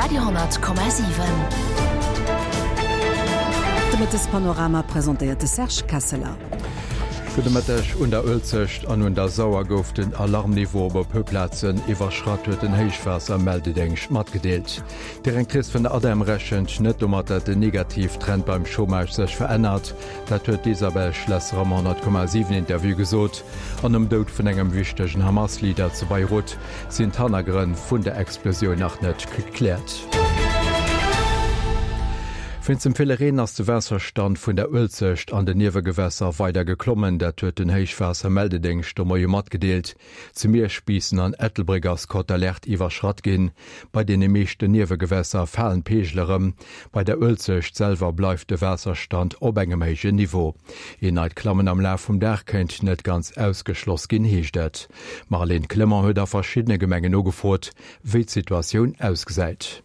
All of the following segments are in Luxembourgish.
Radio,7. De Mëttespanorama presentéiert de Serge Kesseler. Gudde Mëtteg. Un der Uelzecht an un der Sauer gouf den Alarmniveau op e puer Plazen iwwerschratt, huet den Héichwaassermeldedéngscht matgedeelt. D'Directrice vun der ADEM rechent net domat, datt den Negativtrend beim Chômage sech verännert. Dat huet d'Isabelle Schlesser am 100,7 Interview gesot. An nom Doud vun engem wichtegen Hamas-Leader zu Beirut sinn d'Hannergrënn vun der Explosioun nach net gekläert. Wéinst dem ville Reen ass de Waasserstand vun der Uelzecht an den Niewegewässer weider geklommen. Dat huet den Héichwaassermeldedéngscht de Moie matgedeelt. Zu Miersch, Biissen an Ettelbréck ass d'Cote d'alerte iwwerschratt ginn. Bei deene meeschten Niewegewässer falen d'Peegel erëm. Bei der Uelzecht selwer bleift de Waasserstand op engem héijen Niveau. Een neit Klammen am Laf vum Dag kéint net ganz ausgeschloss ginn, heescht et. D'Marlène Clement huet a verschiddene Gemengen nogefrot, wéi d'Situatioun ausgesäit.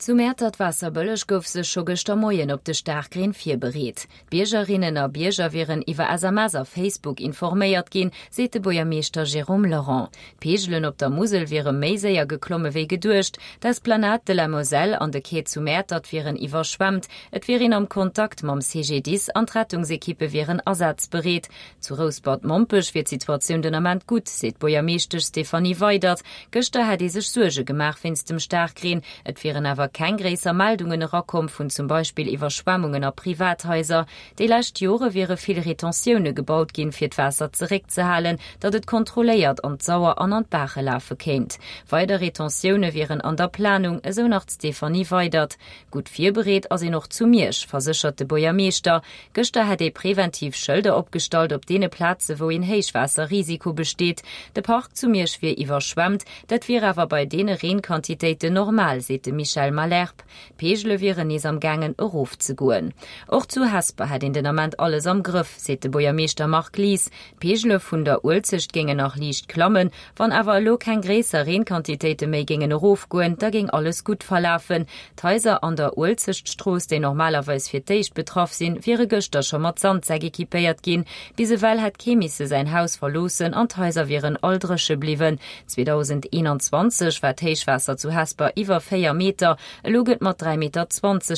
Zu Mäertert-Waasserbëlleg gouf sech scho gëschter Moien op de Staarkreen virbereet. D'Biergerinnen a Bierger wieren iwwer SMS a Facebook informéiert ginn, seet de Buergermeeschter Jérôme Laurent. D'Peegelen op der Musel wiere méi séier geklomme wéi geduecht. D'Esplanade de la Moselle an de Quai zu Mäertert wieren iwwerschwemmt. Et wier een am Kontakt mam CGDIS an d'Rettungsekippe wieren asazbereet. Zu Rouspert-Mompech wier d'Situatioun den Ament gutt, seet d'Buergermeeschtesch Stéphanie Weydert. Gëschter hätt ee sech Suerge gemaach wéinst dem Staarkreen. Et wieren awer keng gréisser Meldungen erakomm vun zum Beispill Iwwerschwemmungen a Privathaiser. Déi lescht Jore wiere vill Retentioune gebaut ginn, fir d'Waasser zeréckzehalen, datt et kontrolléiert an d'Sauer an an d'Baache lafe kéint. Weider Retentioune wieren an der Planung, esou nach d'Stéphanie Weydert. Gutt virbereet ass een och zu Miersch, verséchert de Buergermeeschter. Gëschter hätt ee preventiv Schëlder opgestallt op deene Plaze wou een Héichwaasserrisiko besteet. De Park zu Miersch wier iwwerschwemmt, dat wier awer bei deene Reenquantitéiten normal, seet de Michel Malherbe. D'Peegele wieren nees am gaangen erofzegoen. Och zu Hesper hätt een den Ament alles am Grëff, seet de Buergermeeschter Marc Lies. D'Peegele vun der Uelzecht géingen nach liicht klammen. Wann awer elo keng gréisser Reenquantitéite méi géingen erofgoen, da géing alles gutt verlafen. D'Haiser an der Uelzechtstrooss, déi normalerweis fir d'éischt betraff sinn, wiere gëschter scho mat Sandsäck equipéiert ginn. Bis ewell hätt kee misse säin Haus verloossen an d'Haiser wieren all dréche bliwwen. 2021 war d'Héichwaasser zu Hesper iwwer 4 Meter, elo gëtt mat 3,20 Meter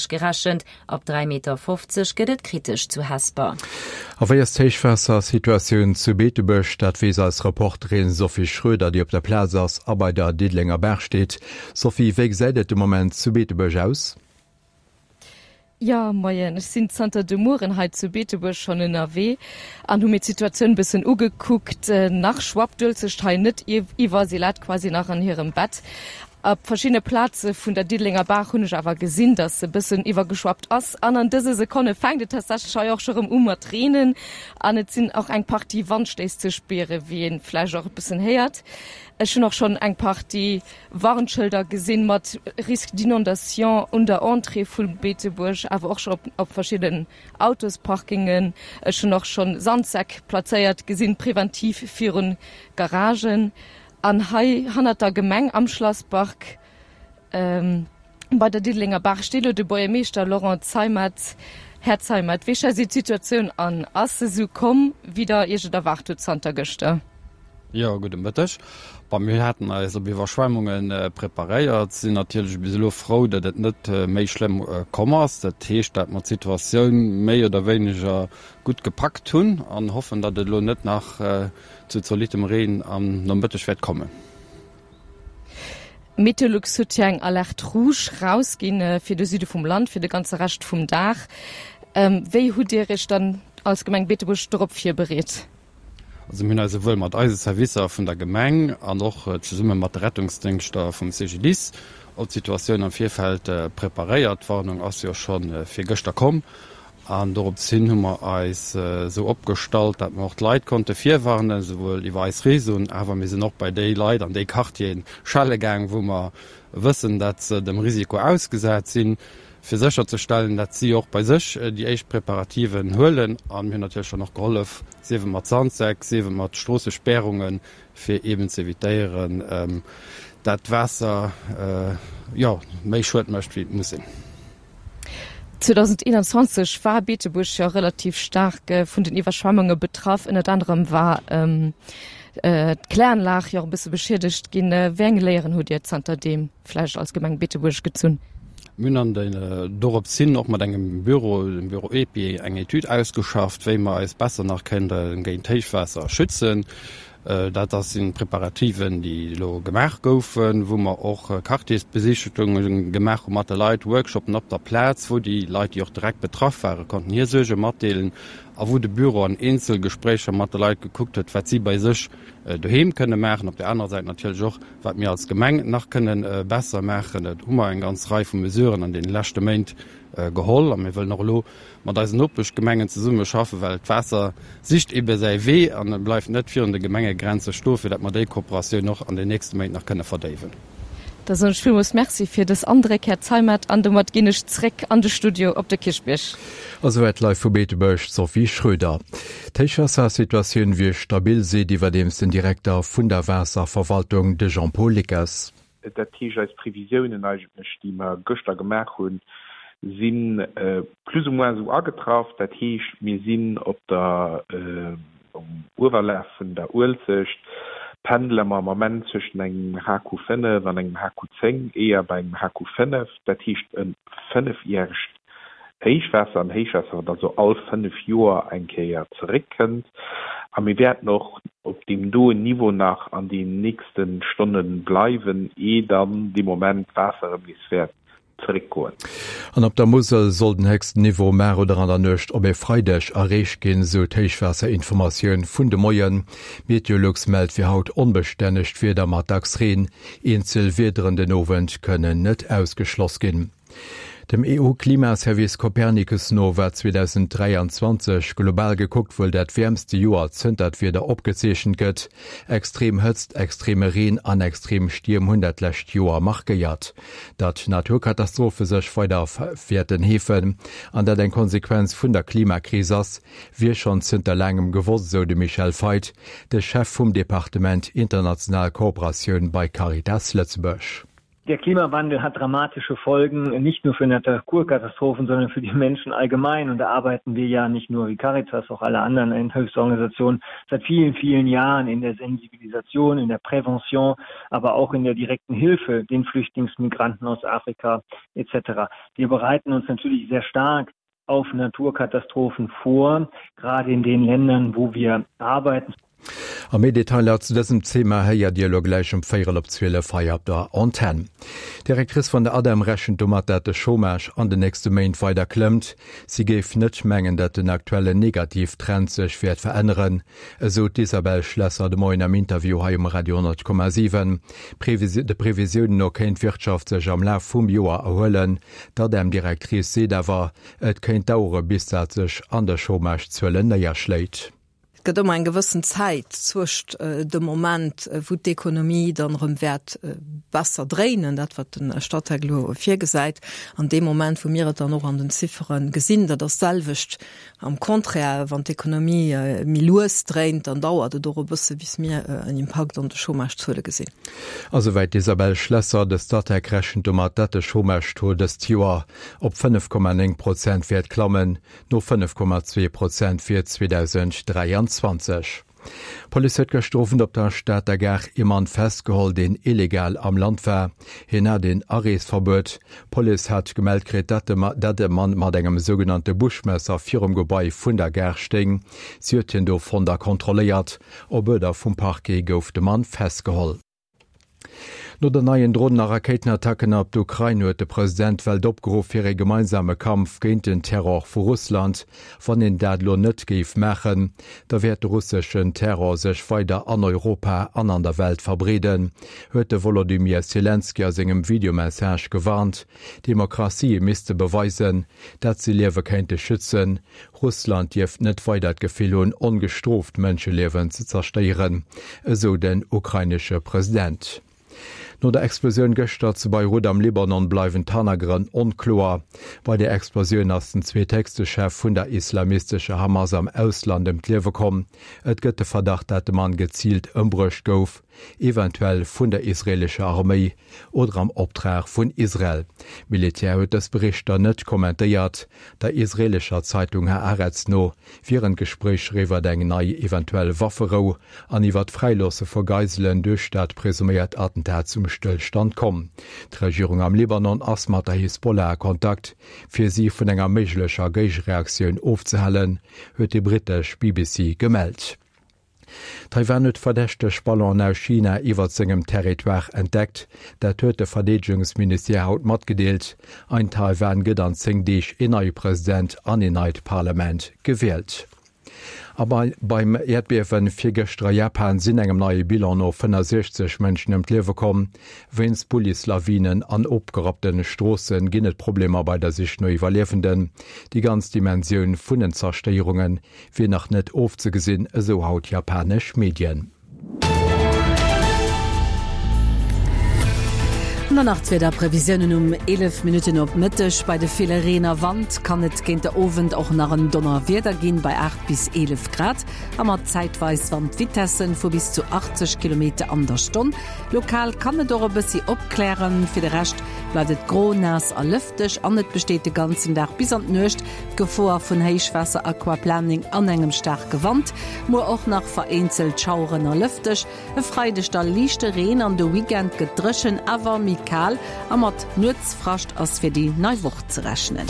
gerechent. Ab 3,50 Meter gëtt et kritesch zu Hesper. A wéi ass d'Héichwaassersituatioun zu Beetebuerg? Dat weess eis Reporterin Sophie Schroeder, déi op der Plaz ass a bei der Diddelenger Baach steet. Sophie, wéi gesäit et de Moment zu Beetebuerg aus? Jo, moien. Ech sinn zanter de Mueren hei zu Beetebuerg schonn ënnerwee an hu mir d'Situatioun bëssen ugekuckt. Nach schwappt d'Uelzecht hei net iwwer, si läit quasi nach an hirem Bett. Op verschiddene Plaze vun der Diddelenger Baach hunn ech awer gesinn, dass se bëssen iwwergeschwappt ass. An an dëse Sekonne fänkt et tatsächlech hei och scho rëm u mat reenen an et sinn och eng Partie Wandstéiss ze spieren, wéi ee vläicht och e bëssen héiert. Ech hunn och schonn eng Partie Warnschëlder gesinn mat Risque d'inondation un der Entrée vu Beetebuerg, awer och scho op verschidden Autosparkingen. Ech hunn och schonn Sandsäck plazéiert gesinn, preventiv virun Garagen. An hei hannert der Gemeng am Schlasspark bei der Diddelenger Baach steet elo de Buergermeeschter Laurent Zeimet. Här Zeimet, wéi schätzt Dir d'Situatioun an? Ass se esou komm, wéi Der Iech et erwaart hutt zanter gëschter? Jo, gudde Mëtteg. Bon, mir haten eis op Iwwerschwemmunge preparéiert, sinn natierlech bis elo frou, datt et net méi schlëmm komm ass. Dat heescht, datt mer d'Situatioun méi oder wéineger gutt gepackt hunn an hoffen, datt et elo net nach zu zolittem Reen am Nomëtteg wäert kommen. Meteolux huet jo eng Alerte rouge rausginn fir de Süde vum Land fir de ganze Rescht vum Dag. Wéi hutt Dir Iech dann als Gemeng Beetebuerg dorop virbereet? Also mir hunn eis esouwuel mat eise Servicer vun der Gemeng an och zesumme mat de Rettungsdéngschter vum CGDIS op d'Situatioun am Virfeld preparéiert. D'Warnung ass jo scho virgëschter komm An dorops hin hu mer eis esou opgestallt, dat mer och d'Leit konnte virwarnen, esouwuel iwwer eis Réseauen, awer mir sinn och bei déi Leit an déi Quartieren schelle gaang, wou mer wëssen, dat se dem Risiko ausgesat sinn, fir sécherzestellen, dat si och bei sech déi éischt Preparativen huelen. A mir hunn natierlech dann och gehollef, sief et mat Sandsäck, sief et mat Stroossespäerungen, fir eeben ze evitéieren, dat d'Waasser, jo, méi Schued mécht, wéi et muss sinn. 2021 war Beetebuerg jo relativ staark vun den Iwwerschwemmunge betraff. Ënnert anerem war. D'Kläranlag jo och e bësse beschiedegt ginn. Wéi eng Léieren hutt Dir zanterdeem vläicht als Gemeng Beetebuerg gezunn? Mir hunn an den dorops hin och mat engem Büro, dem Büro EPI, eng Etüd ausgeschafft, wéi mer eis besser nach kënnte géint Héichwaasser schützen. Dat ass sinn Preparativen, déi elo gemaach goufen, wou mer och Quartiersbesichtegungen gemaach hu mat de Leit, Workshopen op der Plaz, wou déi Leit, déi och direkt betraff waren, konnten hir Suerge matdeelen a wou de Büro an Eenzelgespréicher mat de Leit gekuckt huet, wat si bei sech doheem kënne maachen. Op där anerer Säit natierlech och, wat mir als Gemeng nach kënne besser maachen. Do hu mer eng ganz Rei vu Mesuren an deene leschte Méint geholl a mir wëllen och elo mat eisen Nopeschgemengen zesumme schaffen, well d'Waasser sicht ebe säi Wee an e bleift net virun de Gemengegrenze stoen, fir dat mer déi Kooperatioun och an den nächste Méint nach kënne verdéiwen. Da soen ech villmools Merci fir dës Andréck, Här Zeimet, an domat ginn ech zréck an de Studio op de Kierchbierg. A souwäit live vu Beetebuerg d'Sophie Schröder. D'Héichwaassersituatioun wier stabil, seet iwwerdeems den Direkter vun der Waasserverwaltung, de Jean-Paul Lickers. Dat heescht, eis Previsiounen eigentlech, déi mer gëschter gemaach hunn, si plus ou moins esou agetraff. Dat heescht, mir sinn op der, um Uewerlaf vun der Uelzecht pendele mer am Ament zwëschen engem HQ 5 an engem HQ 10, éier bei engem HQ 5. Dat heescht e fënnefjäregt Héichwaasser, en Héichwaasser, wat also all fënnef Joer eng Kéier zeréckkënnt. A mir wäerten och op deem doen Niveau nach an den nächste Stonne bleiwen, ee dann dee Moment d'Waasser erëm nees wäert zeréckgoen. An op der Musel soll den héchsten Niveau mar oder an der Nuecht op e Freideg erreecht ginn, sou d'Héichwaasserinformatioun vun de Moien. Meteolux mellt fir haut onbestännegt Wieder mat dacks Reen. Eenzel Wiederen den Owend kënnen net ausgeschloss ginn. Dem EU-Klimaservice Copernicus no war 2023 global gekuckt wuel dat wäermste Joer zënter d'Wieder opgezeechent gëtt. Extrem Hëtzt, extreme Reen an extrem Stierm hunn dat lescht Joer markéiert. Datt Naturkatastrophe sech weider wäerten heefen an dat eng Konsequenz vun der Klimakris ass, wier schonn zënter laangem gewosst, esou de Michel Feit, de Chef vum Departement International Kooperatioun bei Caritas Lëtzebuerg. Der Klimawandel hat dramatische Folgen, nicht nur für Naturkatastrophen, sondern für die Menschen allgemein. Und da arbeiten wir ja nicht nur wie Caritas, auch alle anderen Hilfsorganisationen seit vielen, vielen Jahren in der Sensibilisation, in der Prävention, aber auch in der direkten Hilfe den Flüchtlingsmigranten aus Afrika etc. Wir bereiten uns natürlich sehr stark auf Naturkatastrophen vor, gerade in den Ländern, wo wir arbeiten. A méi Detailer zu dësem Thema héiert Dir elo gläich um véierel op 12 hei op der Antenn. D'Directrice vun der ADEM rechent domat, dat de Chômage an den nächste Méint weider klëmmt. Si géif net mengen, dat den aktuellen Negativtrend sech wäert veränneren, esou d'Isabelle Schlesser de Moien am Interview hei um Radio 10,7. De Previsiounen no kéint d'Wirtschaft sech am Laf vum Joer erhuelen. D'ADEM-Directrice seet awer, et kéint dauere bis dat sech an de Chômage-Zuelen néierschléit. Et gëtt ëmmer eng gewëssen Zäit zwëscht dem Moment, wou d'Ekonomie dann erëm wäert besser dréinen, dat wat de Statec elo virgesäit, an deem Moment, wou mir et dann och an den Ziffere gesinn. Dat ass d'selwecht am Contraire, wann d'Ekonomie méi lues dréint, dann dauert et och e bësse bis mir en Impakt an de Chômagezuele gesinn. A souwäit d'Isabelle Schlesser. De Statec rechent domat, datt de Chômage-Taux dëst Joer op 5,9 Prozent wäert klammen, no 5,2 Prozent fir 2023. D'Police huet gëschter Owend op der Stater Gare ee Mann festgeholl, deen illegal am Land war. Hien hat een Areesverbuet. D'Police hat gemellt kritt, datt e Mann mat engem sougenannte Buschmesser virum Gebai vun der Gare stéing. Si huet hien do fonnt a kontrolléiert. Op Uerder vum Parquet gouf de Mann festgeholl. No den neien Dronen a Rakéitenattacken op d'Ukrain huet de President d'Welt opgeruff fir ee gemeinsame Kampf géint den Terror vu Russland. Wann een dat elo net géif maachen, da wäert de russeschen Terror sech weider an Europa an an der Welt verbreeden, huet de Wolodymyr Selenskyj a sengem Videomessage gewarnt. Demokratië misste beweisen, dat se Liewe kéinte schützen. Russland dierft net weider d'Gefill hunn, ongestrooft Mënscheliewen ze zerstéieren, esou den ukrainesche President. No der Explosioun gëschter zu Beirut am Libanon bleiwen d'Hannergrënn onkloer. Bei der Explosioun ass den zweethéchste Chef vun der islamistescher Hamas am Ausland ëm d'Liewe komm. Et gëtt de Verdacht, dat de Mann geziilt ëmbruecht gouf. Eventuell vun der israeelescher Arméi oder am Optrag vun Israel. D'Militär huet dës Berichter net kommentéiert. Der israeelescher Zeitung Haaretz no wieren d'Gespréicher iwwer eng nei eventuell Wafferou an iwwer d'Fräiloosse vu Geiselen duerch dat presuméiert Attentat zum Stëllstand komm. D'Regierung am Libanon ass mat der Hisbollah a Kontakt, fir si vun enger méiglecher Géigereaktioun ofzehalen, huet déi brittesch BBC gemellt. Taiwan huet verdächteg Ballonen aus China iwwert sengem Territoire entdeckt. Dat huet de Verdeedegungsministère haut matgedeelt. Ein Taiwan gëtt an 10 Deeg een neie President an een neit Parlament gewielt. A beim Äerdbiewen virgëschter a Japan sinn engem neie Bilan no 65 Mënschen ëm d'Liewe komm. Wéinst Bullislawinen an opgerappte Stroosse ginn et Problemer bei der Sich no Iwwerliewenden. Déi ganz Dimensioun vun den Zerstéierunge wier nach net ofzegesinn, esou haut japanesch Medien. An dann nach d'Wiederprevisiounen um 11 Minutten op Mëtteg. Bei de ville Reen a Wand kann et géint de Owend och nach en Donnerwieder ginn, bei 8 bis 11 Grad a mat zäitweis Wandvitessen vu bis zu 80 Kilometer an der Stonn. Lokal kann et och e bëssi opklären, fir de Rescht bleift et gro, naass a lëfteg an et besteet de ganzen Dag bis an d'Nuecht D'Gefoer vun Héichwaasser, Aquaplaning an engem staarke Wand. Muer och nach vereenzelt Schaueren a lëfteg. E Freideg da liichte Reen an de Weekend gëtt dréchen, awer méi kal a mat Nuetsfrascht ass fir déi nei Woch ze rechnen.